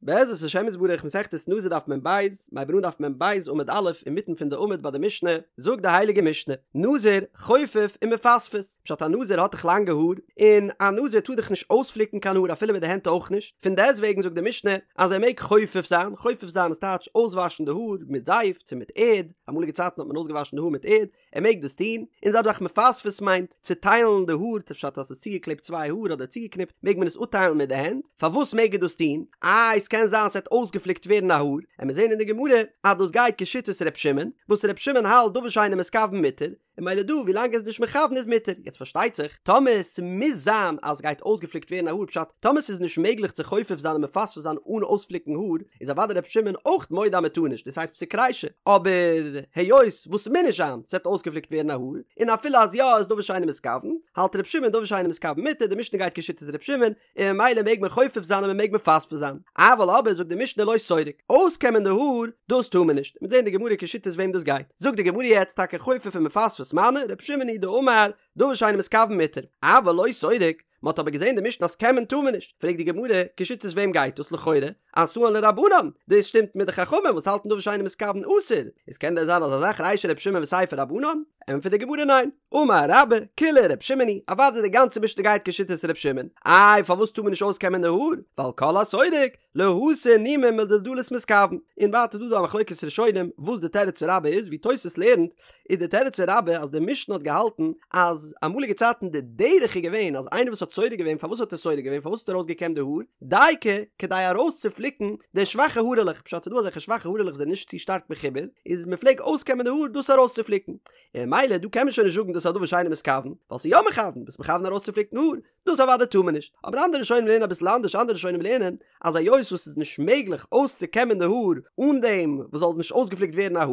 בעזרת השם יתברך מסכת נזיר דף מ"ב, מ'הייבט אן דף מ"ב עמוד א' אינמיטן פון די עמוד ביי די משנה, זאגט די הייליגע משנה, נזיר חופף ומפספס, פשט א נזיר האט דאך לאנגע האר, און א נזיר טאר דאך נישט אויספליקן קיין האר אפילו מיט די הענט אויך נישט, פון דעסטוועגן זאגט די משנה אז ער מעג חופף זיין, חופף זיין איז טייטש אויסוואשן די האר מיט זייף צו מיט ערד, אמאליגע צייטן האט מען אויסגעוואשן די האר מיט ערד, ער מעג דאס טון, און זעלבע זאך מפספס מיינט צוטיילן די האר, פשט אז ס'איז צוגעקלעבט צוויי האר אדער צוגעקניפט מעג מען עס אפטיילן מיט די הענט, פארוואס מעג ער דאס טון? איי ס'קען זיין ס'וועט אויסגעפליקט ווערן א האר, עמיר זעהן אין די גמרא אז דאס גייט כשיטת ר' שמעון, וואס ר' שמעון האלט דבר שאינו מתכוון מותר, און ממילא דא ווילאנג ער איז נישט מכוון איז מותר, יעצט פארשטייט זיך טאמער ס'מוז זיין אז ס'גייט אויסגעפליקט ווערן א האר פשט טאמער ס'איז נישט מעגליך צו חופף זיין און מפספס זיין אן אויספליקן האר, איז אוודאי ר' שמעון אויך מודה אז מ'טאר נישט, דאס הייסט פסיק רישא, אבער היות וואס ס'מוז נישט זיין ס'וועט אויסגעפליקט ווערן א האר, און אפילו אז יא איז דבר שאינו מתכוון, האלט ר' שמעון דבר שאינו מתכוון מותר, די משנה גייט כשיטת ר' שמעון, און ממילא מעג מען חופף זיין און מ'מעג מפספס זיין, אבל אבער זאגט די משנה לא סורק, אויסקעמען די האר, דאס טאר מען נישט, מ'וועט זען אין די גמרא כשיטת וועם דאס גייט, זאגט די גמרא יעצט טאקע חופף ומפספס מני, ר' שמעון היא דאמר, דבר שאינו מתכוון מותר, אבל לא סורק, מען האט אבער געזען די משנה אז קעמען טאר מען נישט, פרעגט די גמרא, כשיטת וועם גייט דאס לכאורה, אתאן לרבנן, דאס שטימט מיט די חכמים וואס האלטן דבר שאינו מתכוון אסור, איז קען דען זיין אזא זאך רישא רבי שמעון וסיפא רבנן? ענטפערט די גמרא ניין, אמר רבה, כולה רבי שמעון היא, אוודאי די גאנצע משנה גייט כשיטת רבי שמעון, איי פארוואס טאר מען נישט אויסקעמען די האר, ווייל כל הסורק, להסיר נימין מדולדלות מתכוון, און ווייטער דא דא א מחלוקת ראשונים וואס די תירוץ פון רבה איז, ווי תוס' לערנט איז די תירוץ פון רבה אז די משנה האט געהאלטן אז אמאליגע צייטן די דרך איז געווען אז איינער וואס האט סורק געווען פארוואס האט ער סורק געווען פארוואס האט ער ארויסגעקעמט די האר דייקא כדי ארויסצופליקן די שוואכע הארעלעך פשט ס'דא אזעלכע שוואכע הארעלעך וואס זענען נישט צו שטארק מחובר איז מ'פלעג אויסקעמען די האר דאס ארויסצופליקן און ממילא דא קען מען שוין נישט זאגן דאס איז א דבר שאינו מתכוון ווייל ס'איז יא מכוון ביסט מכוון ארויסצופליקן האר דאס אוודאי טאר מען נישט, אבער אנדערע ראשונים לערנען אביסל אנדערש, אנדערע ראשונים לערנען אז היות וואס ס'איז נישט מעגליך אויסצוקעמען די האר אן דעם וואס זאל נישט אויסגעפליקט ווערן א האר,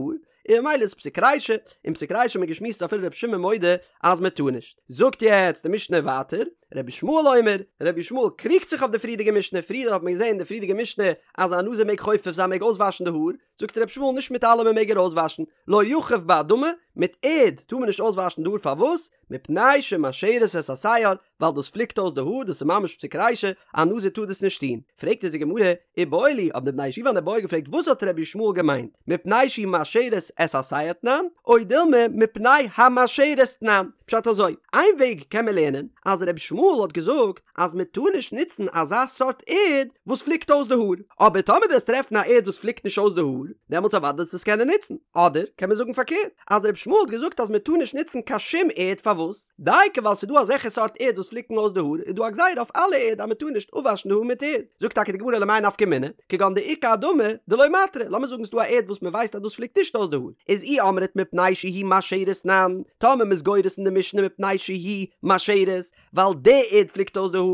און ממילא איז פסיק רישא, און פסיק רישא האט מען געשמועסט אפילו רבי שמעון מודה אז מען טאר נישט. זאגט יעצט די משנה ווייטער, רבי ישמעאל אומר, רבי ישמעאל קריגט זיך אויף די פריערדיגע משנה, פריער האט מען געזען אין די פריערדיגע משנה אז א נזיר מעג חופף זיין מעג אויסוואשן די האר, זאגט רבי ישמעאל נישט מיט אלעמען מעג ער אויסוואשן, לא יחוף באדמה, מיט ערד טאר מען נישט אויסוואשן די האר פארוואס? מפני שמעשרת את השער, ווייל דאס פליקט אויס די האר, דאס איז ממש פסיק רישא, א נזיר טאר דאס נישט טון. פרעגט אונז די גמרא, איבעיא להו, האבן די בני ישיבה אן איבעיא געפרעגט וואס האט רבי ישמעאל געמיינט, מפני שהיא מעשרת את השער תנן, או דילמא מפני המעשרת תנן? פשט אזוי, איין וועג קען מען לערנען, אז רבי ישמעאל האט געזאגט אז מען טאר נישט נוצן אזא סארט ערד וואס פליקט אויס די האר, אבער טאמער דו וועסט טרעפן א ערד וואס פליקט נישט אויס די האר, דעמאלטס אוודאי וועסטו עס קענען נוצן. אדער קען מען זאגן פארקערט, אז רבי ישמעאל האט געזאגט אז מען טאר נישט נוצן קיין שום ערד פארוואס? דייקא ווייל ס'איז דא אזעלכע סארט ערד וואס פליקן אויס די האר איז דא א גזירה אויף אלע ערד אז מען טאר נישט אפוואשן די האר מיט ערד. זאגט טאקע די גמרא למאי נפקא מינה, כגון דאיכא אדמה דלא מעתרא, לאמיר זאגן ס'איז דא א ערד וואס מען ווייסט אז דאס פליקט נישט אויס די האר, איז אי אמרת מפני שהיא מעשרת תנן, טאמער מ'איז גורס אין די משנה מפני שהיא מעשרת, ווייל די ערד פליקט אויס די האר,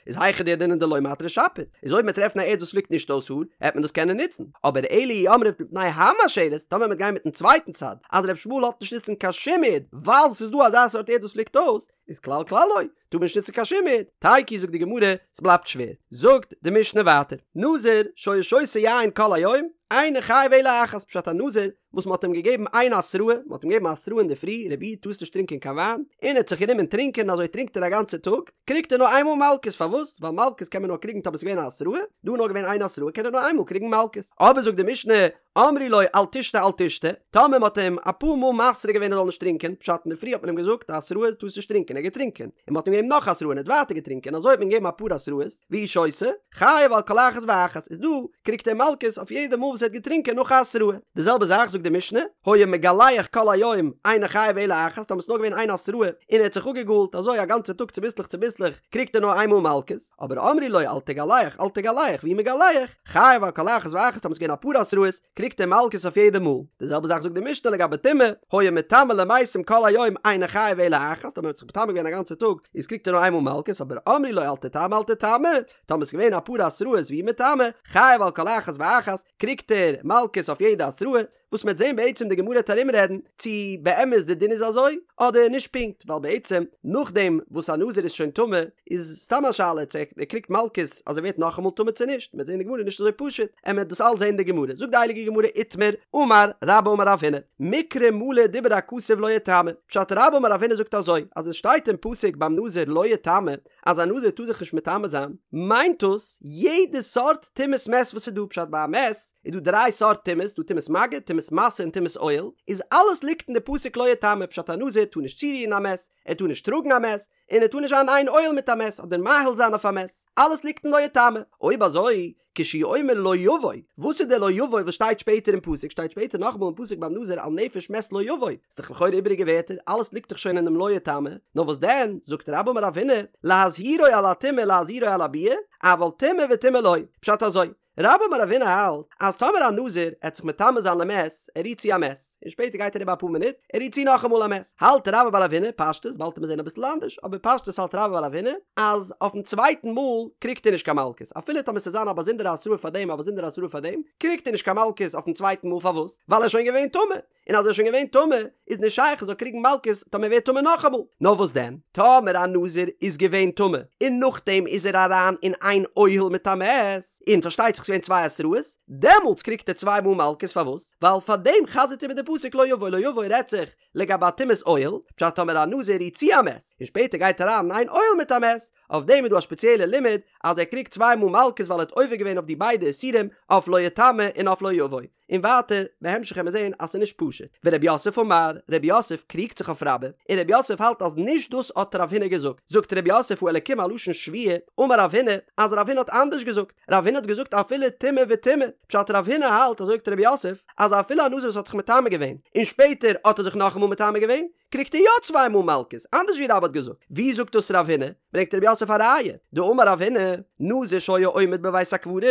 איז היכא דידעינן דלא מעתרא שפיר, איז אויב מ'עט טרעפן א ערד וואס פליקט נישט אויס האר, העט מען דאס קענען נוצן, אבער אלא אי אמרת מפני המעשרת, טאמער מ'עט גיין מיטן צווייטן צד, אז ר' ישמעאל לאזט נישט נוצן קיין שום ערד, ווייל ס'איז דא אזא סארט ערד וואס פליקט אויס, איז כלל כלל לא, טאר מען נישט נוצן קיין שום ערד, תיקו זאגט די גמרא, ס'בלייבט שווער, זאגט די משנה ווייטער, נזיר שהיה שותה יין כל היום, אינו חייב אלא אחת, פשט א נזיר וואס מ'האט אים געגעבן איין התראה, מ'האט אים געגעבן א התראה אינדערפרי, רבי איד טארסט נישט טרינקען קיין וויין, און ער האט זיך גענומען טרינקען, אזוי טרינקט ער א גאנצע טאג, קריגט ער נאר איינמאל מלקות, פארוואס? ווייל מלקות קען מען נאר קריגן טאמער ס'איז געווען א התראה, דא איז נאר געווען איין התראה קען ער נאר איינמאל קריגן מלקות. אבער זאגט די משנה, אמרו לו אל תשתה אל תשתה, טאמער מ'האט אים אפאר מאל מתרה געווען ער זאל נישט טרינקען, פשט אינדערפרי האט מען אים געזאגט א התראה טארסט נישט טרינקען, ער האט געטרינקען, און מ'האט אים געגעבן נאך התראה און ער האט ווייטער געטרינקען, אזוי האט מען געגעבן אפאר התראות, והוא שותה, חייב על כל אחת ואחת, איז דא קריגט ער מלקות אויף יעדע מאל וואס ער האט געטרינקען נאך א התראה. די זעלבע זאך זאגט די משנה, היה מגלח כל היום אינו חייב אלא אחת, טאמער ס'איז נאר געווען איין התראה און ער האט זיך אפגעגאלט אזוי א גאנצע טאג צוביסלעך צוביסלעך קריגט ער נאר איין מאל מלקות, אבער אמרו לו אל תגלח אל תגלח והוא מגלח, חייב על כל אחת ואחת טאמער ס'איז געווען אפאר התראות קריגט ער מלקות אויף יעדע מאל. די זעלבע זאך זאגט די משנה לגבי טומאה, היה מטמא למתים כל היום אינו חייב אלא אחת, טאמער ער האט זיך מטמא געווען א גאנצע טאג איז קריגט ער נאר איינמאל מלקות, אבער אמרו לו אל תטמא אל תטמא, טאמער ס'איז געווען אפאר התראות והוא מטמא, חייב על כל אחת ואחת, קריגט ער מלקות אויף יעדע התראה. וואס מ'עט זען בעצם די גמרא וועט ארומרעדן צו באמת די דין איז אזוי אדער נישט פונקט, ווייל בעצם נאכדעם וואס א נזיר איז שוין טמא איז סתם א שאלה צו ער קריגט מלקות אז ער ווערט נאכאמאל טמא צו נישט, מ'עט זען די גמרא נישט אזוי פשוט, עמער דאס אלס זען אין די גמרא, זאגט די הייליגע גמרא איתמר, אמר רבה אמר רב הונא, מקרא מלא דיבר הכתוב לא יטמא, פשט רבה אמר רב הונא זאגט אזוי, אז עס שטייט אין פסוק ביים נזיר לא יטמא, אז א נזיר טאר זיך נישט מטמא זיין, מיינט דאס יעדע סארט טומאת מת וואס איז דא, פשט ביי א מת איז דא דריי סארט טומאות, דא טומאת מגע, טומאת משא און טומאת אוהל, איז אלעס ליגט אין די פסוק לא יטמא, פשט א נזיר טאר נישט צורירן א מת, ער טאר נישט טראגן א מת, און ער טאר נישט זיין אין אוהל מיט א מת אדער מאהיל זיין אויף א מת, אלעס ליגט אין לא יטמא, אויב אזוי כשהוא אומר לא יבוא, וואס איז דער לא יבוא וואס שטייט שפעטער אין פסוק, שטייט שפעטער נאכאמאל אין פסוק ביים נזיר על נפש מת לא יבוא, איז דאך לכאורה איבעריגע ווערטער, אלעס ליגט דאך שוין אינעם לא יטמא, נאר וואס דען, זאגט רבה אמר רב הונא, להזהירו על הטומאה להזהירו על הביאה, אבל טומאה וטומאה לא, פשט אזוי, רבה אמר רב הונא האלט אז טאמער א נזיר עט זיך מטמא זיין למת, ער רירט צו א מת, און שפעטער גייט אריבער אפאר מינוט, ער רירט צו נאכאמאל א מת, האלט רבה בר רב הונא, פשטות, באלד עמיר זעהן אביסל אנדערש, אבער פשטות האלט רבה בר רב הונא, אז אויפן צווייטן מאל קריגט ער נישט קיין מלקות, אפילו טאמער ס'זאל זיין א באזונדערע התראה פאר דעם א באזונדערע התראה פאר דעם, קריגט ער נישט קיין מלקות אויפן צווייטן מאל פארוואס? ווייל ער איז שוין געווען טמא, און אז ער איז שוין געווען טמא איז נישט שייך ער זאל קריגן מלקות טאמער ער ווערט טמא נאכאמאל, נאר וואס דען טאמער א נזיר איז געווען טמא און נאכדעם איז ער אריין אין איין אוהל מיט א מת, און פארשטייט זיך ס'געווען צוויי התראות, דעמאלטס קריגט ער צוויי מאל מלקות פארוואס? ווייל פאר דעם חזר'ט איבער די פסוק לא יבוא לא יבוא רעדט זיך לגבי א טומאת אוהל, פשט טאמער א נזיר רירט צו א מת און שפעטער גייט אריין אין איין אוהל מיט א מת, אויף דעם איז דא א שפעציעלע לימוד אז ער קריגט צוויי מאל מלקות ווייל ער האט עובר געווען אויף די ביידע איסורים אויף לא יטמא און אויף לא יבוא. און ווייטער בהמשך וועט מען זעהן אז ס'איז נישט פשוט. ורב יוסף אמר, רב יוסף קריגט זיך אויף רבה, און רב יוסף האלט אז נישט דאס האט רב הונא געזאגט. זאגט רב יוסף האלקים א לשון שבועה, אמר רב הונא, אז רב הונא האט אנדערש געזאגט. רב הונא האט געזאגט אפילו טומאה וטומאה. פשט רב הונא האלט, אזוי זאגט רב יוסף, אז אפילו א נזיר וואס האט זיך מטמא געווען, און שפעטער האט ער זיך נאכאמאל מטמא געווען, קריגט ער יא צוויי מאל מלקות, אנדערש ווי רבה האט געזאגט. ווי זאגט דאס רב הונא? ברענגט רב יוסף א ראיה, דאמר רב הונא, נזיר שהיה עומד בבית הקברות,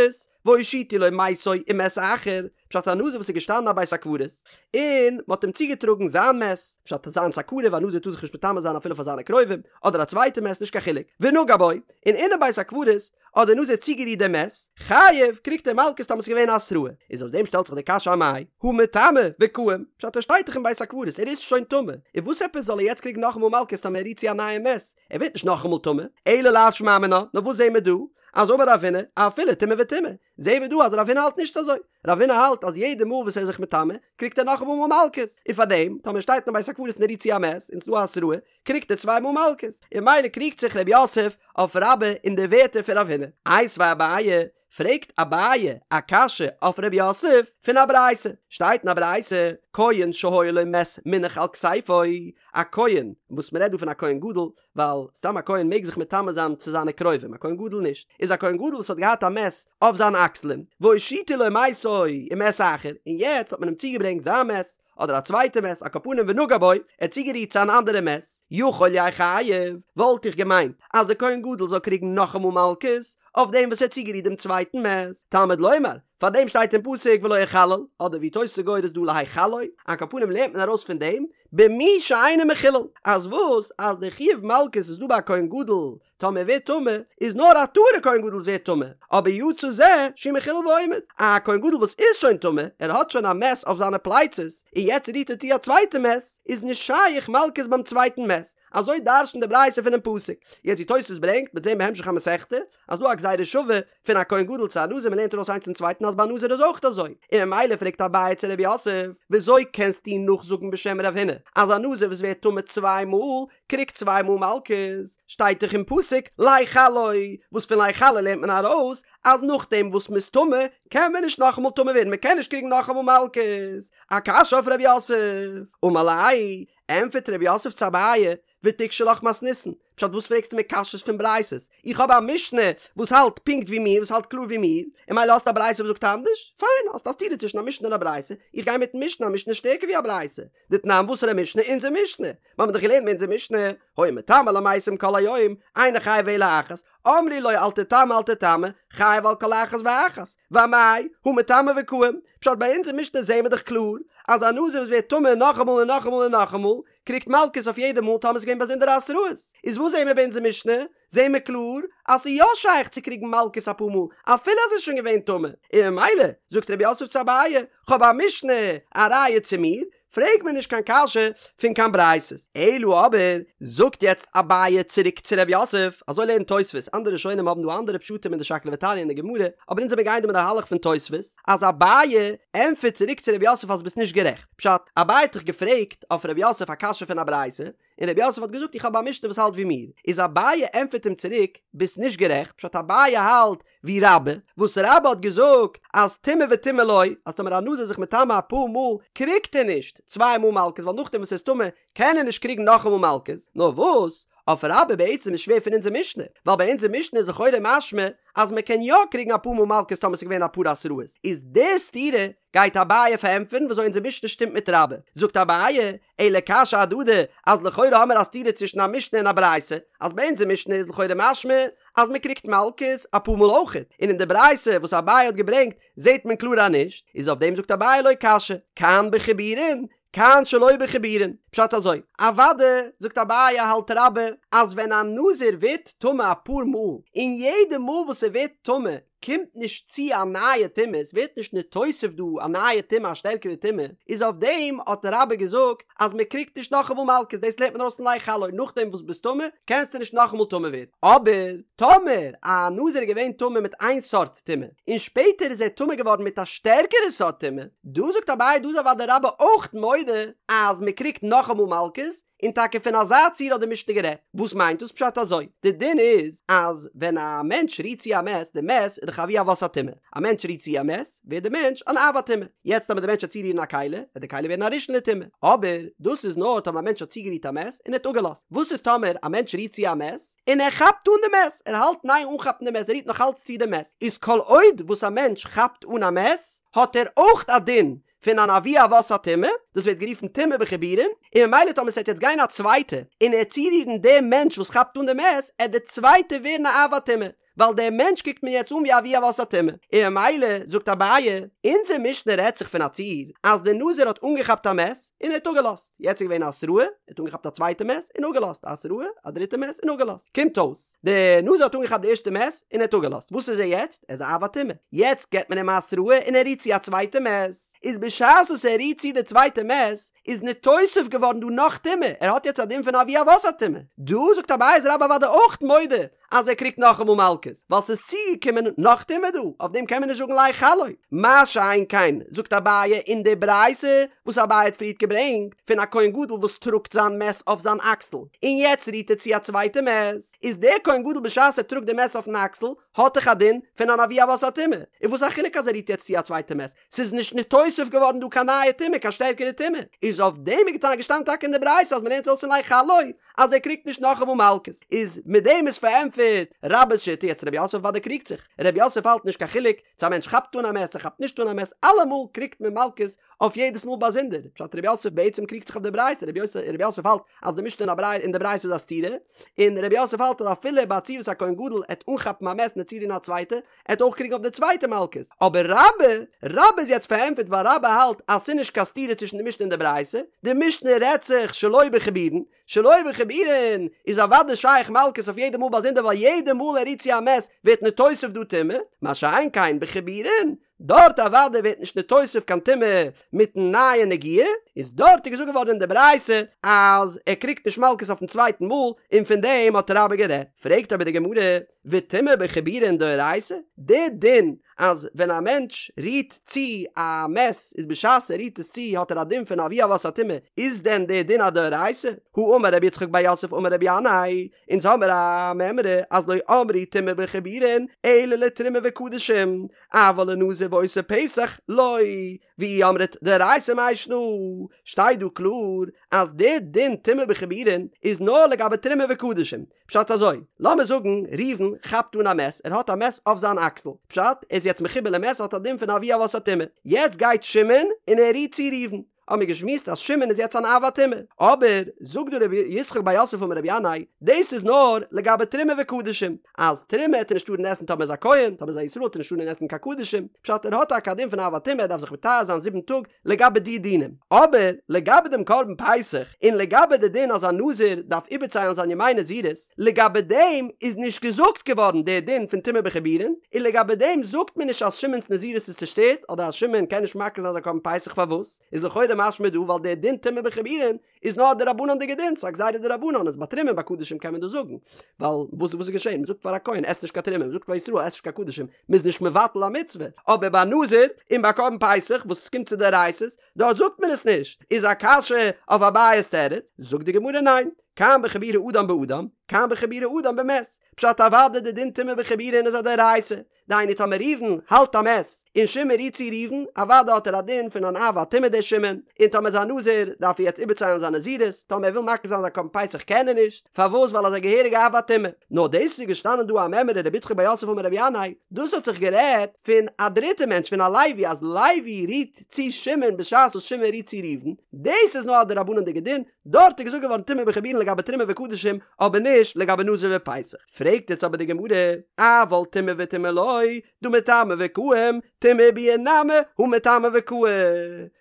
והושיטו לו מתו ומת אחר, פשט א נזיר וואס איז געשטאנען א בית הקברות, און מען האט אים צוגעטראגן זיין מת, פשט זיינס א קרוב, א נזיר טאר זיך נישט מטמא זיין אפילו פאר זיינע קרובים, אדער א צווייטע מת נישט קיין חילוק, ונגע בו, און אינעם בית הקברות האט דער נזיר צוגערירט דעם מת, חייב, קריגט ער מלקות טאמער ס'איז געווען א התראה, איז אויף דעם שטעלט זיך די קשיא אמאי, הא מטמא וקאים, פשט ער שטייט דאך אין בית הקברות, ער איז שוין טמא, און וואס עפעס זאל ער יעצט קריגן נאכאמאל מלקות טאמער ער רירט צו א נייע מת, ער ווערט נישט נאכאמאל טמא, אלא לאו שמע מינה, נאר וואס זעהן מיר דא? אז אמר רב הונא, אפילו טומאה וטומאה, זעהן מיר דא אז רב הונא האלט נישט אזוי, רב הונא האלט אז יעדע מאל וואס ער איז זיך מטמא, קריגט ער נאכאמאל מלקות, און פארדעם, טאמער ער שטייט אין בית הקברות און ער רירט צו א מת, און ס'איז דא א התראה, קריגט ער צוויי מאל מלקות, און ממילא קריגט זיך רב יוסף אויף רבה אין די ווערטער פון רב הונא. איתיביה אביי, פרעגט אביי א קשיא אויף רב יוסף פון א ברייתא, שטייט אין א ברייתא, כהן שהיה לו מת מונח על כתפו, א כהן, וואס מ'רעדט דא פון א כהן גדול, ווייל סתם א כהן מעג זיך מטמא זיין צו זיינע קרובים, א כהן גדול נישט, איז א כהן גדול וואס האט געהאט א מת אויף זיינע אקסלען, והושיטו לו מתו ומת אחר, און יעצט האט מען אים צוגעברענגט זיין מת, אדער א צווייטע מת, על כל פנים ונגע בו, ער האט צוגערירט צו אן אנדערע מת, יכול יהא חייב, וואלט איך געמיינט אז דער כהן גדול זאל קריגן נאכאמאל מלקות, אויף דעם וואס ער האט צוגערירט דעם צווייטן מת, תלמוד לומר, פאר דעם שטייט אין פסוק ולא יחלל, אדער ווי תוס' גורס דא להחלו, על כל פנים לערנט מען ארויס פון דעם, במי שאינו מחולל, אז וואס אז די חיוב מלקות איז דא ביי א כהן גדול, טאמער ער ווערט טמא, איז נאר א טהור'ע כהן גדול וואס ווערט טמא, אבער יצא זה שהוא מחולל ועומד, א כהן גדול וואס איז שוין טמא, ער האט שוין א מת אויף זיינע פלייצעס, און יעצט רירט ער צו א צווייטע מת, איז נישט שייך מלקות ביים צווייטן מת, אזוי דרש'נט די ברייתא פונעם פסוק. יעצט ווי תוס' ברענגט, מ'וועט זען בהמשך המסכתא, אז דא א גזירה שווה פון א כהן גדול צו א נזיר מ'לערנט ארויס איינס צום צווייטן אז ביי א נזיר איז אויך אזוי, און ממילא פרעגט אביי צו רב יוסף, וויאזוי קענסטו נאכזאגן בשם רב הונא אז א נזיר וואס ווערט טמא צוויי מאל קריגט צוויי מאל מלקות, שטייט דאך אין פסוק להחלו, וואס פון להחלו לערנט מען ארויס אז נאכדעם וואס מ'איז טמא קען מען נישט נאכאמאל טמא ווערן מ'קען נישט קריגן נאכאמאל מלקות, א קשיא אויף רב יוסף, אמר ליה, ענטפערט רב יוסף צו אביי, ותיקשי לך מתניתין, פשט וואס פרעגסטו מיר קשיות פון ברייתות, איך האב א משנה וואס האלט פונקט ווי מיר, וואס האלט קלאר ווי מיר, און ממילא האסטו א ברייתא וואס זאגט אנדערש, פיין, האסט א סתירה צווישן א משנה און א ברייתא, איך גיי מיטן משנה, א משנה איז שטערקער ווי א ברייתא, דתנן וואסערע משנה? אונזער משנה! מיר האבן דאך געלערנט אין אונזער משנה, היה מטמא למתים כל היום, אינו חייב אלא אחת, אמרו לו אל תטמא אל תטמא, חייב על כל אחת ואחת, ואמאי, הא מטמא וקאים, פשט ביי אונזער משנה זעהן מיר דאך קלאר. אז א נזיר וואס ווערט טמא נאכאמאל און נאכאמאל און נאכאמאל, קריגט מלקות אויף יעדע מאל טאמער ס'איז געווען באזונדערע התראות. איז וואס זעהן מיר ביי אונזער משנה? זעהן מיר קלאר אז ס'איז יא שייך צו קריגן מלקות אפאר מאל אפילו אז ער איז שוין געווען טמא, און ממילא זאגט רב יוסף צו אביי, כ'האב א משנה א ראיה צו מיר, פרעג מיר נישט קיין קשיא פון קיין ברייתות. אלא אבער, זאגט יעצט אביי צוריק צו רב יוסף, אזוי לערנט תוספות, אנדערע ראשונים האבן דא אנדערע פשטים אין די שקלא וטריא אין די גמרא, אבער אונז זעמיר גייען דא מיט די מהלך פון תוספות, אז אביי ענטפערט צוריק צו רב יוסף אז ביסט נישט גערעכט, פשט, אביי האט דאך געפרעגט אויף רב יוסף א קשיא פון א ברייתא, און רב יוסף האט געזאגט איך האב א משנה וואס האלט ווי מיר, איז אביי ענטפערט אים צוריק, ביסט נישט גערעכט, פשט אביי האלט ווי רבה, וואס רבה האט געזאגט אז טומאה וטומאה לא, אז טאמער א נזיר איז זיך מטמא אפאר מאל קריגט ער נישט צוויי מאל מלקות ווייל נאכדעם וואס ער איז טמא קען ער נישט קריגן נאכאמאל מלקות, נאר וואס אויף רבה בעצם איז שווער פון אונזער משנה, ווייל ביי אונזער משנה איז לכאורה משמע אז מען קען יא קריגן אפאר מאל מלקות טאמער ס'איז געווען אפאר התראות, איז די סתירה גייט אביי פארענטפערן וויאזוי אונזער משנה שטימט מיט רבה, זאגט אביי, אלא קשיא אהדדי, אז לכאורה האמיר א סתירה צווישן א משנה און א ברייתא, אז ביי אונזער משנה איז לכאורה משמע אז מען קריגט מלקות אפאר מאל אויכעט, און אין די ברייתא וואס אביי האט געברענגט זעט מען קלאר אז נישט, איז אויף דעם זאגט אביי לא קשיא, כאן בחיבורין, כאן שלא בחיבורין, פשט אזוי, אוואדע, זאגט אביי האלט רבה, אז ווען א נזיר ווערט טמא אפאר מאל, און יעדע מאל וואס ער ווערט טמא קומט נישט צו א נייע טומאה, עס ווערט נישט נתוסף דא א נייע טומאה א שטערקערע טומאה, איז אויף דעם האט רבה געזאגט אז מען קריגט נישט נאכאמאל מלקות, דאס לערנט מען ארויס פון לך לו, נאכדעם וואס ביסט טמא קענסטו נישט נאכאמאל טמא ווערן, אבער טאמער א נזיר איז געווען טמא מיט איין סארט טומאה, און שפעטער איז ער טמא געווארן מיט א שטערקערע סארט טומאה, דא זאגט אביי דא איז אוודאי רבה אויך מודה אז מען קריגט נאכאמאל מלקות, און טאקע פון אזא ציור האט די משנה גערעדט. וואס מיינט דאס פשט אזוי? די דין איז אז ווען א מענטש רירט צו א מת, די מת איז דאך אבי אבות הטומאה, א מענטש רירט צו א מת, ווערט די מענטש אן אב הטומאה. יעצט טאמער די מענטש וועט צורירן א כלי, וועט די כלי ווערן א ראשון לטומאה. אבער דאס איז נאר טאמער א מענטש האט צוגערירט א מת און ער האט אפגעלאזט. וואס איז טאמער א מענטש רירט צו א מת און ער כאפט אן די מת, ער האלט אין איין אנכאפן די מת, ער רירט נאך אלץ צו די מת, איז כל עוד וואס א מענטש כאפט אן א מת, האט ער אויך א דין פון אן אבי אבות הטומאה, דאס ווערט גערופן טומאה בחיבורין, און ממילא טאמער ס'עט יעצט גיין א צווייטע און ער צורירן דעם מענטש וואס כאפט אן די מת, עט די צווייטע ווערן א אב הטומאה, ווייל דער מענטש קוקט מען יעצט אן ווי אבי אבות הטומאה, און ממילא זאגט אביי, אונזער משנה רעדט זיך פון א ציור אז דער נזיר האט אנגעכאפט א מת און ער האט אפגעלאזט, יעצט איז געווען א התראה, ער האט אנגעכאפט א צווייטע מת און אפגעלאזט, א התראה, א דריטע מת און אפגעלאזט, קומט אויס, דער נזיר האט אנגעכאפט די ערשטע מת און ער האט אפגעלאזט, וואס איז ער יעצט? ער איז א אב הטומאה, יעצט געבט מען אים א התראה און ער רירט צו א צווייטע מת, איז בשעת וואס ער רירט צו די צווייטע מת, איז נתוסף געווארן דא נאך טומאה, ער האט יעצט א דין פון אבי אבות הטומאה, דא זאגט אביי איז רבה אוודאי אויך מודה אז ער קריגט נאכאמאל מלקות, ווייל ס'איז צוגעקומען נאך טומאה דא, אויף דעם קען מען נישט זאגן לך לו. מה שאין כן, זאגט אביי אין די ברייתא וואס אביי האט פריערט געברענגט, פון א כהן גדול וואס טראגט זיין מת אויף זיין אקסל, און יעצט רירט ער צו א צווייטע מת, איז דער כהן גדול בשעת ער טראגט די מת אויפן אקסל, האט דאך א דין פון אן אבי אבות הטומאה, און וואס א חילוק אז ער רירט יעצט צו א צווייטע מת, ס'איז נישט נתוסף געווארן דא קיין נייע טומאה, קיין שטערקערע טומאה, איז אויף דעם איז געשטאנען טאקע אין די ברייתא אז מ'לערנט ארויס פון לך לו אז ער קריגט נישט נאכאמאל מלקות, איז מיט דעם איז פארענטפערט רבה'ס שיטה, יעצט רב יוסף אוודאי קריגט זיך, רב יוסף האלט נישט קיין חילוק צו א מענטש כאפט אן א מת צו כאפט נישט אן א מת, אלעמאל קריגט מען מלקות אויף יעדעס מאל באזונדער, פשט רב יוסף בעצם קריגט זיך אויף די ברייתא, רב יוסף האלט אז די משנה אין די ברייתא איז א סתירה, און רב יוסף האלט אז אפילו ביי א ציור וואס א כהן גדול עט אנכאפן א מת און צורירן א צווייטע, ער וועט אויך קריגן אויף די צווייטע מלקות, אבער רבה, רבה איז יעצט פארענטפערט ווייל רבה האלט אז ס'איז נישט קיין סתירה צווישן די משנה און די ברייתא, די משנה רעדט זיך שלא בחיבורין, שלא בחיבורין איז אוודאי שייך מלקות אויף יעדע מאל באזונדער ווייל יעדע מאל ער רירט צו א מת ווערט נתוסף דא טומאה, מה שאין כן בחיבורין, דארט אוודאי ווערט נישט נתוסף קיין טומאה מיטן נייע נגיעה, איז דארט איז געזאגט געווארן אין די ברייתא אז ער קריגט נישט מלקות אויפן צווייטן מאל, און פון דעם האט רבה גערעדט. פרעגט אבער די גמרא, וטומאה בחיבורין דאורייתא, די דין אז ווען א מענטש רירט צו א מת איז בשעת ער רירט עס צו האט ער א דין פון אבי אבות הטומאה, איז דען די דין א דאורייתא? האמר רבי יצחק בר יוסף אמר רבי ינאי, אונז האמער א מימרא אז לא אמרו טומאה בחיבורין אלא לתרומה וקדשים, אבל לנזיר ועושה פסח לא, ואי אמרת דאורייתא מאי שנא, שטייט דא קלאר אז די דין טומאה בחיבורין איז נאר לגבי תרומה וקדשים, פשט אזוי, לאמיר זאגן ראובן כאפט אן א מת, ער האט א מת אויף זיין אקסל, פשט, ער איז יעצט מחובר למת האט א דין פון אבי אבות הטומאה, יעצט גייט שמעון און ער רירט צו ראובן, האבן מיר געשמועסט אז שמעון איז יעצט אן אב הטומאה. אבער, זאגט דא רבי יצחק בר יוסף אמר רבי ינאי, דאס איז נאר לגבי תרומה וקדשים, אז תרומה העט ער נישט טארן עסן טאמער איז א כהן, טאמער איז א ישראל העט ער נישט טארן עסן קיין קדשים, פשט ער האט טאקע א דין פון אב הטומאה ער דארף זיך מטהר זיין זיבן טאג לגבי די דינים, אבער לגבי דעם קרבן פסח, און לגבי די דין אז א נזיר דארף איבערציילן זיין ימי נזירות, לגבי דעם איז נישט געזאגט געווארן דער דין פון טומאה בחיבורין, און לגבי דעם זאגט מען נישט אז שמעון'ס נזירות איז צושטערט אדער אז שמעון קען נישט מקריב זיין זיין קרבן פסח פארוואס איז לכאורה משמע דא ווייל דער דין טומאה בחיבורין איז נאר א דרבנן'דיגע דין ס'איז א גזירה דרבנן איז ביי תרומה און ביי קדשים קען מען דאס זאגן ווייל וואס וואס איז געשען מ'זאגט פאר א כהן עס נישט קיין תרומה מ'זאגט פאר ישראל עס נישט קיין קדשים מ'איז נישט מבטל א מצוה אבער ביי נזיר און ביי קרבן פסח וואס עס קומט צו דאורייתא'ס דארט זאגט מען עס נישט איז א קשיא אויף אביי'ס תירוץ זאגט די גמרא ניין כאן בחבורי אדם באדם, כאן בחבורי אדם במת. פשט אוודאי די דין טומאה בחיבורין איז א דאורייתא. דהיינו טאמער ראובן האלט א מת, און שמעון רירט צו ראובן, אוודאי האט ער א דין פון אן אב הטומאה דער שמעון, און טאמער איז א נזיר דארף ער יעצט איבערציילן זיין נזירות, טאמער ער וויל מקריב זיין זיין קרבן פסח קען ער נישט, פארוואס ווייל ער איז א געהעריגע אב הטומאה. נאר דאס איז געשטאנען דא א מימרא רבי יצחק בר יוסף אמר רבי ינאי, דאס האט זיך גערעדט פון א דריטע מענטש פון א לוי אז לוי רירט צו שמעון בשעת וואס שמעון רירט צו ראובן, דאס איז נאר א דרבנן'דיגע דין, דארט איז געזאגט געווארן טומאה בחיבורין לגבי תרומה וקדשים, אבער נישט לגבי נזיר ופסח. פרעגט יעצט אבער די גמרא, אבל טומאה וטומאה לא, דהא מטמא וקאים, טומאה וביאה נמי הא מטמא וקאי.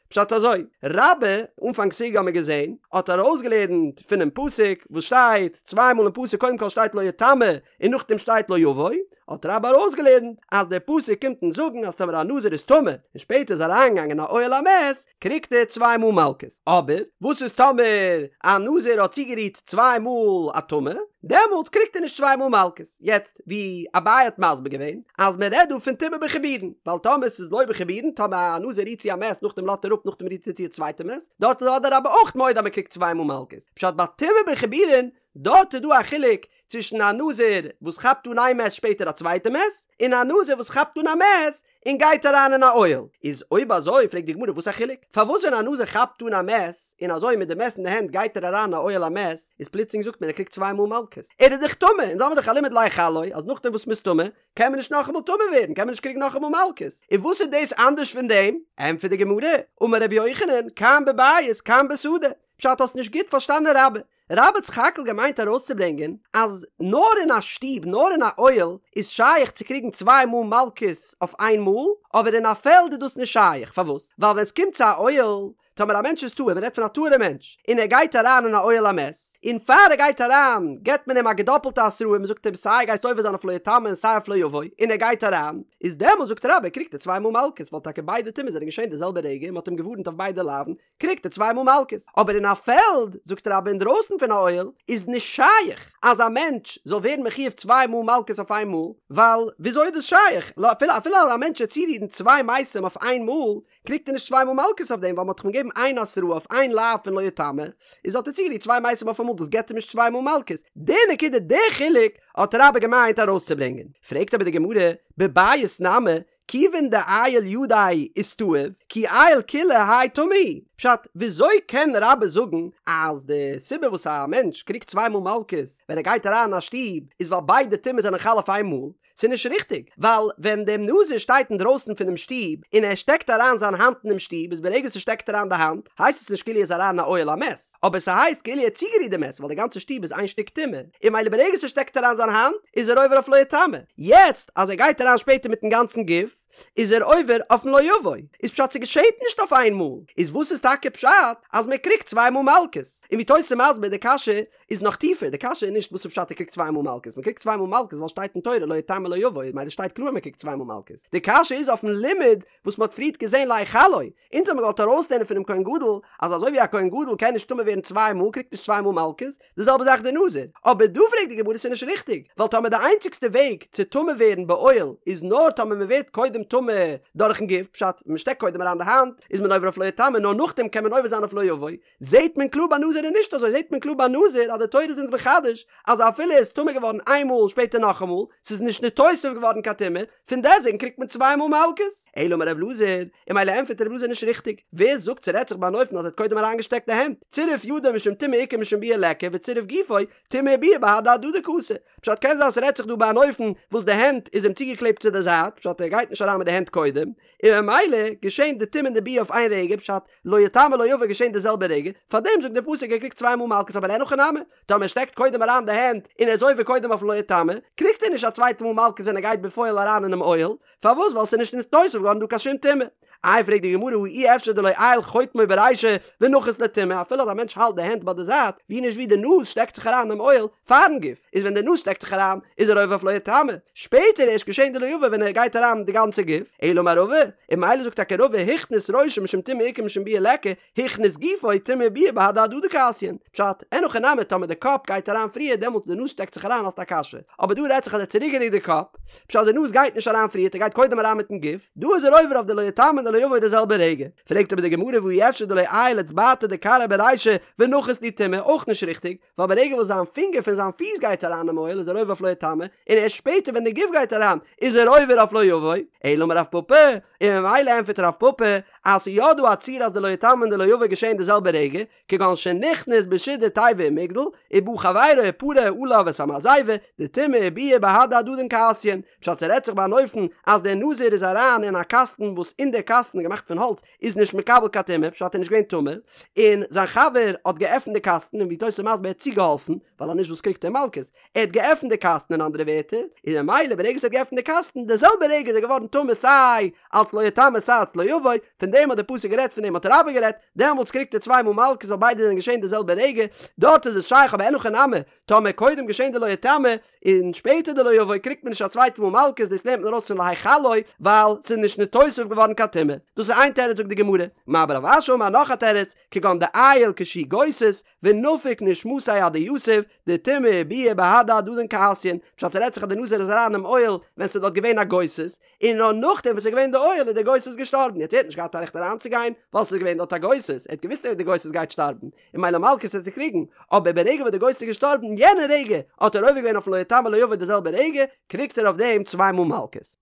פשט אזוי, רבה, אנפאנג סוגיא האמיר געזען, האט ארויסגעלערנט פונעם פסוק וואס שטייט צוויי מאל אין פסוק קודם כל שטייט לא יטמא און נאכדעם שטייט לא יבוא, האט רבה ארויסגעלערנט אז דער פסוק קומט אונז זאגן אז טאמער א נזיר איז טמא און שפעטער איז אריינגעגאנגען אין א אוהל המת קריגט ער צוויי מאל מלקות, אבער וואס איז טאמער א נזיר האט צוגערירט צוויי מאל א טמא, דעמאלטס קריגט ער נישט צוויי מאל מלקות. יעצט ווי אביי האט מסביר געווען אז מען רעדט דא פון טומאה בחיבורין, ווייל טאמער ס'איז לא בחיבורין, טאמער א נזיר רירט צו א מת נאכדעם לאזט ער אפ נאכדעם רירט ער צו א צווייטע מת, דארט איז אוודאי רבה אויך מודה אז מען קריגט צוויי מאל מלקות, פשט ביי טומאה בחיבורין דארט איז דא א חילוק צווישן א נזיר וואס כאפט אן איין מת שפעטער א צווייטע מת, און א נזיר וואס כאפט אן א מת און גייט אריין אין א אוהל. איז אויב אזוי פרעגט די גמרא וואס א חילוק? פארוואס ווען א נזיר כאפט אן א מת און אזוי מיט די מת אין די הענט גייט ער אריין אין א אוהל המת איז פלוצלינג זאגט מען ער קריגט צוויי מאל מלקות? ער איז דאך טמא! אונז האמיר דאך א לימוד להחלו אז נאכדעם וואס מ'איז טמא קען מען נישט נאכאמאל טמא ווערן קען מען נישט קריגן נאכאמאל מלקות. און וואס איז דאס אנדערש פון דעם? ענטפערט די גמרא, אמר רבי יוחנן, כאן בבית כאן בשדה. פשט האסט נישט גוט פארשטאנען רבה. רבה האט סך הכל געמיינט ארויסצוברענגען אז נאר אין א שטוב נאר אין א אוהל איז שייך צו קריגן צוויי מאל מלקות אויף איין מאל, אבער אין א פעלד איז דאס נישט שייך, פארוואס? ווייל ווען סקומט צו א אוהל, טאמער א מענטש איז טהור, מ'רעדט פון א טהור'ע מענטש, און ער גייט אריין אין א אוהל המת, און פאר ער גייט אריין געבט מען אים א געדאפלטע התראה, מ'זאגט אים סיי גייסט עובר זיין אויף לא יטמא און סיי אויף לא יבוא, און ער גייט אריין, איז דעמאלט זאגט רבה קריגט ער צוויי מאל מלקות, ווייל טאקע ביידע טומאות זענען געשען די זעלבע רגע און מ'האט אים געווארנט אויף ביידע לאווין, קריגט ער צוויי מאל מלקות. אבער אין א פעלד, זאגט רבה אינדרויסן פון א אוהל, איז נישט שייך אז א מענטש זאל ווערן מחויב צוויי מאל מלקות אויף איין מאל, ווייל וויאזוי איז דאס שייך? אפילו אפילו אז א מענטש וועט צורירן צוויי מתים אויף איין מאל, קריגט ער נישט צוויי מאל מלקות אויף דעם, ווייל מ'האט דאך אים געגעבן איין התראה אויף איין לאו פון לא יטמא, איז האט ער צוגערירט צוויי מתים אויף אמאל, דאס געבט אים נישט צוויי מאל מלקות. די נקודה, די חילוק, האט רבה געמיינט ארויסצוברענגען. פרעגט אבער די גמרא, בבית נמי, כיוון דעייל ידיה איסתאב, כי עייל כוליה האי טמא הוא. פשט, וויאזוי קען רבה זאגן אז די סיבה וואס א מענטש קריגט צוויי מאל מלקות ווען ער גייט אריין אין א שטוב איז ווייל ביידע טומאות זענען חל אויף איין מאל? ס'איז נישט ריכטיג, ווייל ווען דער נזיר שטייט אינדרויסן פונעם שטוב און ער שטעקט אריין זיין האנט אינעם שטוב איז ברגע ס'שטעקט אריין די האנט הייסט עס נישט כאילו ער איז אריין אין א אוהל המת, אבער ס'הייסט כאילו ער האט צוגערירט די מת ווייל די גאנצע שטוב איז איין שטיק טומאה, און ממילא ברגע ס'שטעקט אריין זיין האנט איז ער עובר אויף לא יטמא, יעצט אז ער גייט אריין שפעטער מיטן גאנצן גוף איז ער עובר אויפן לא יבוא, איז פשט ס'געשעהט נישט אויף איין מאל, איז וואס איז טאקע פשט אז מ'קריגט צוויי מאל מלקות? און ווי תוס' איז מסביר די קשיא איז נאך טיפער, די קשיא איז נישט וואס איז פשט ער קריגט צוויי מאל מלקות, מ'קריגט צוויי מאל מלקות ווייל שטייט אין תורה לא יטמא לא יבוא, ממילא שטייט קלאר מ'קריגט צוויי מאל מלקות, די קשיא איז אויפן לימוד וואס מ'האט פריערט געזעהן להחלו, אונז האבן געוואלט ארויסלערנען פונעם כהן גדול אז אזוי ווי א כהן גדול קען נישט טמא ווערן צוויי מאל קריגט נישט צוויי מאל מלקות, די זעלבע זאך די נזיר. אבער דא פרעגט די גמרא ס'איז נישט ריכטיג, ווייל טאמער די איינציגסטע וועג צו טמא ווערן באוהל איז נאר טאמער מ'ווערט קודם טמא דורכן גוף, פשט, מ'שטעקט קודם אריין די האנט איז מען עובר אויף לא יטמא נאר נאכדעם קען מען עובר זיין אויף לא יבוא, זעהט מען קלאר ביי נזיר איז נישט אזוי, זעהט מען קלאר ביי נזיר אז די תורה איז אונז מחדש אז אפילו ער איז טמא געווארן איין מאל שפעטער נאכאמאל, ס'איז נישט נתוסף געווארן קיין טומאה, פון דעסוועגן קריגט מען צוויי מאל מלקות. אלא אמר רב אלעזר, און ממילא ענטפערט רב אלעזר נישט ריכטיג, ווער זאגט ס'רעדט זיך ביי אן אופן אז ער האט קודם אריינגעשטעקט די הענט, צירף ידו משום טומאה איכא משום ביאה ליכא וצירף גופו, טומאה וביאה בהדי הדדי קאתי. פשט קען זיין ס'רעדט זיך דא ביי אן אופן וואס די הענט איז אים צוגעקלעבט צו די זייט, פשט ער גייט נישט אריין. אריין מיט די הענט קודם, און ממילא געשען די טומאה און די ביאה אויף איין רגע, פשט, לא יטמא לא יבא געשען די זעלבע רגע, פארדעם זאגט דער פסוק ער קריגט צוויי מאל מלקות אבער אין הכי נמי, טאמער ער שטעקט קודם אריין די הענט און ער איז עובר קודם אויפן לא יטמא, קריגט ער נישט א צווייטע מאל מלקות ווען ער גייט בפועל אריין אינעם אוהל, פארוואס ווייל ס'איז נישט נתוסף געווארן דא קיין שום טומאה. איי פרעגט די גמרא הא אי אפשר דלא עייל חוטמו ברישא ונחית ליה טומאה אפילו אז א מענטש האלט די הענט ביי די זייט ווי נישט ווי די נאז שטעקט זיך אריין אינעם אוהל פארן גוף איז ווען די נאז שטעקט זיך אריין איז ער עובר אויף לא יטמא שפעטער ערשט געשען די לא יבא ווען ער גייט אריין די גאנצע גוף אלא אמר רבא און ממילא זאגט טאקע רבא הכניס ראשו משום טומאה איכא משום ביאה ליכא הכניס גופו טומאה וביאה בהדי הדדי קאתיין. פשט, אין הכי נמי טאמער די קאפ גייט אריין פריער דעמאלט די נאז שטעקט זיך אריין האסט א קשיא. אבער דא רעדט זיך אז ער האט צוריקגערוקט די קאפ. פשט די נאז גייט נישט אריין פריערט ער גייט קודם אריין מיטן גוף. דא איז ער עובר אויף די לא יטמא און די לא יבא די זעלבע רגע. פרעגט אבער די גמרא והא אי אפשר דלא עייל אצבעתא דכרעיה ברישא ונחית להו טומאה אויך נישט ריכטיג. ווייל ברגע וואס זיין פינגער פון זיין פיס גייט אריין אין אוהל איז ער עובר אויף לא יטמא, און ערשט שפעטער ווען די גוף גייט אריין איז ער עובר אויף לא יבא, אלא אמר רב פפא, און ממילא ענטפערט רב פפא אז ס'איז יא דא א ציור אז די לא יטמא און די לא יבא געשען די זעלבע רגע, כגון שנכנס בשידה תיבה ומגדל, ובא חברו ופרע עליו את המעזיבה, דטומאה וביאה בהדי הדדין קאתיין, פשט ס'רעדט זיך ביי אן אופן אז דער נזיר איז אריין אין א קאסטן וואס אין דער קאסטן געמאכט פון האלץ איז נישט מקבל קיין טומאה, פשט ער איז נישט געווען טמא, און זיין חבר האט געעפנט די קאסטן און ווי תוס' איז מסביר ער האט צוגעהאלפן, ווייל אז נישט וואס קריגט ער מלקות, ער האט געעפנט די קאסטן אין אנדערע ווערטער, און ממילא ברגע ער האט געעפנט די קאסטן די זעלבע רגע איז ער געווארן טמא סיי אלץ לא יטמא סיי אלץ לא יבא, פון דעם האט די פסוק גערעדט פון דעם האט רבה גערעדט, דעמאלטס קריגט ער צוויי מאל מלקות ווייל ביידע זענען געשען די זעלבע רגע, דארט איז עס שייך אבער אין הכי נמי, טאמער קודם געשען די לא יטמא, און שפעטער די לא יבא קריגט מען נישט א צווייטע מאל מלקות דאס לערנט מען ארויס פון להחלו ווייל ס'איז נישט נתוסף געווארן קיין טומאה. דאס איז איין תירוץ זאגט די גמרא. מר בר רב אשי אמר נאך א תירוץ, כגון דעייל כשהוא גוסס, ונפיק נשמתיה אדיתיב, דטומאה וביאה בהדי הדדין קאתיין, פשט ס'רעדט זיך אז די נזיר איז אריין אינעם אוהל ווען ס'איז דארט געווען א גוסס, און נאר נאכדעם וואס ס'איז געווען די אוהל איז דער גוסס געשטארבן, יעצט ער האט נישט געהאט א רעכט אריינצוגיין ווייל ס'איז געווען דארט א גוסס, ער האט געוואוסט אז די גוסס גייט שטארבן, און ממילא מלקות וועט ער קריגן, אבער ברגע וואס די גוסס איז געשטארבן יענע רגע האט ער עובר געווען אויפן לא יטמא לא יבא די זעלבע רגע, קריגט ער אויף דעם צוויי מאל מלקות.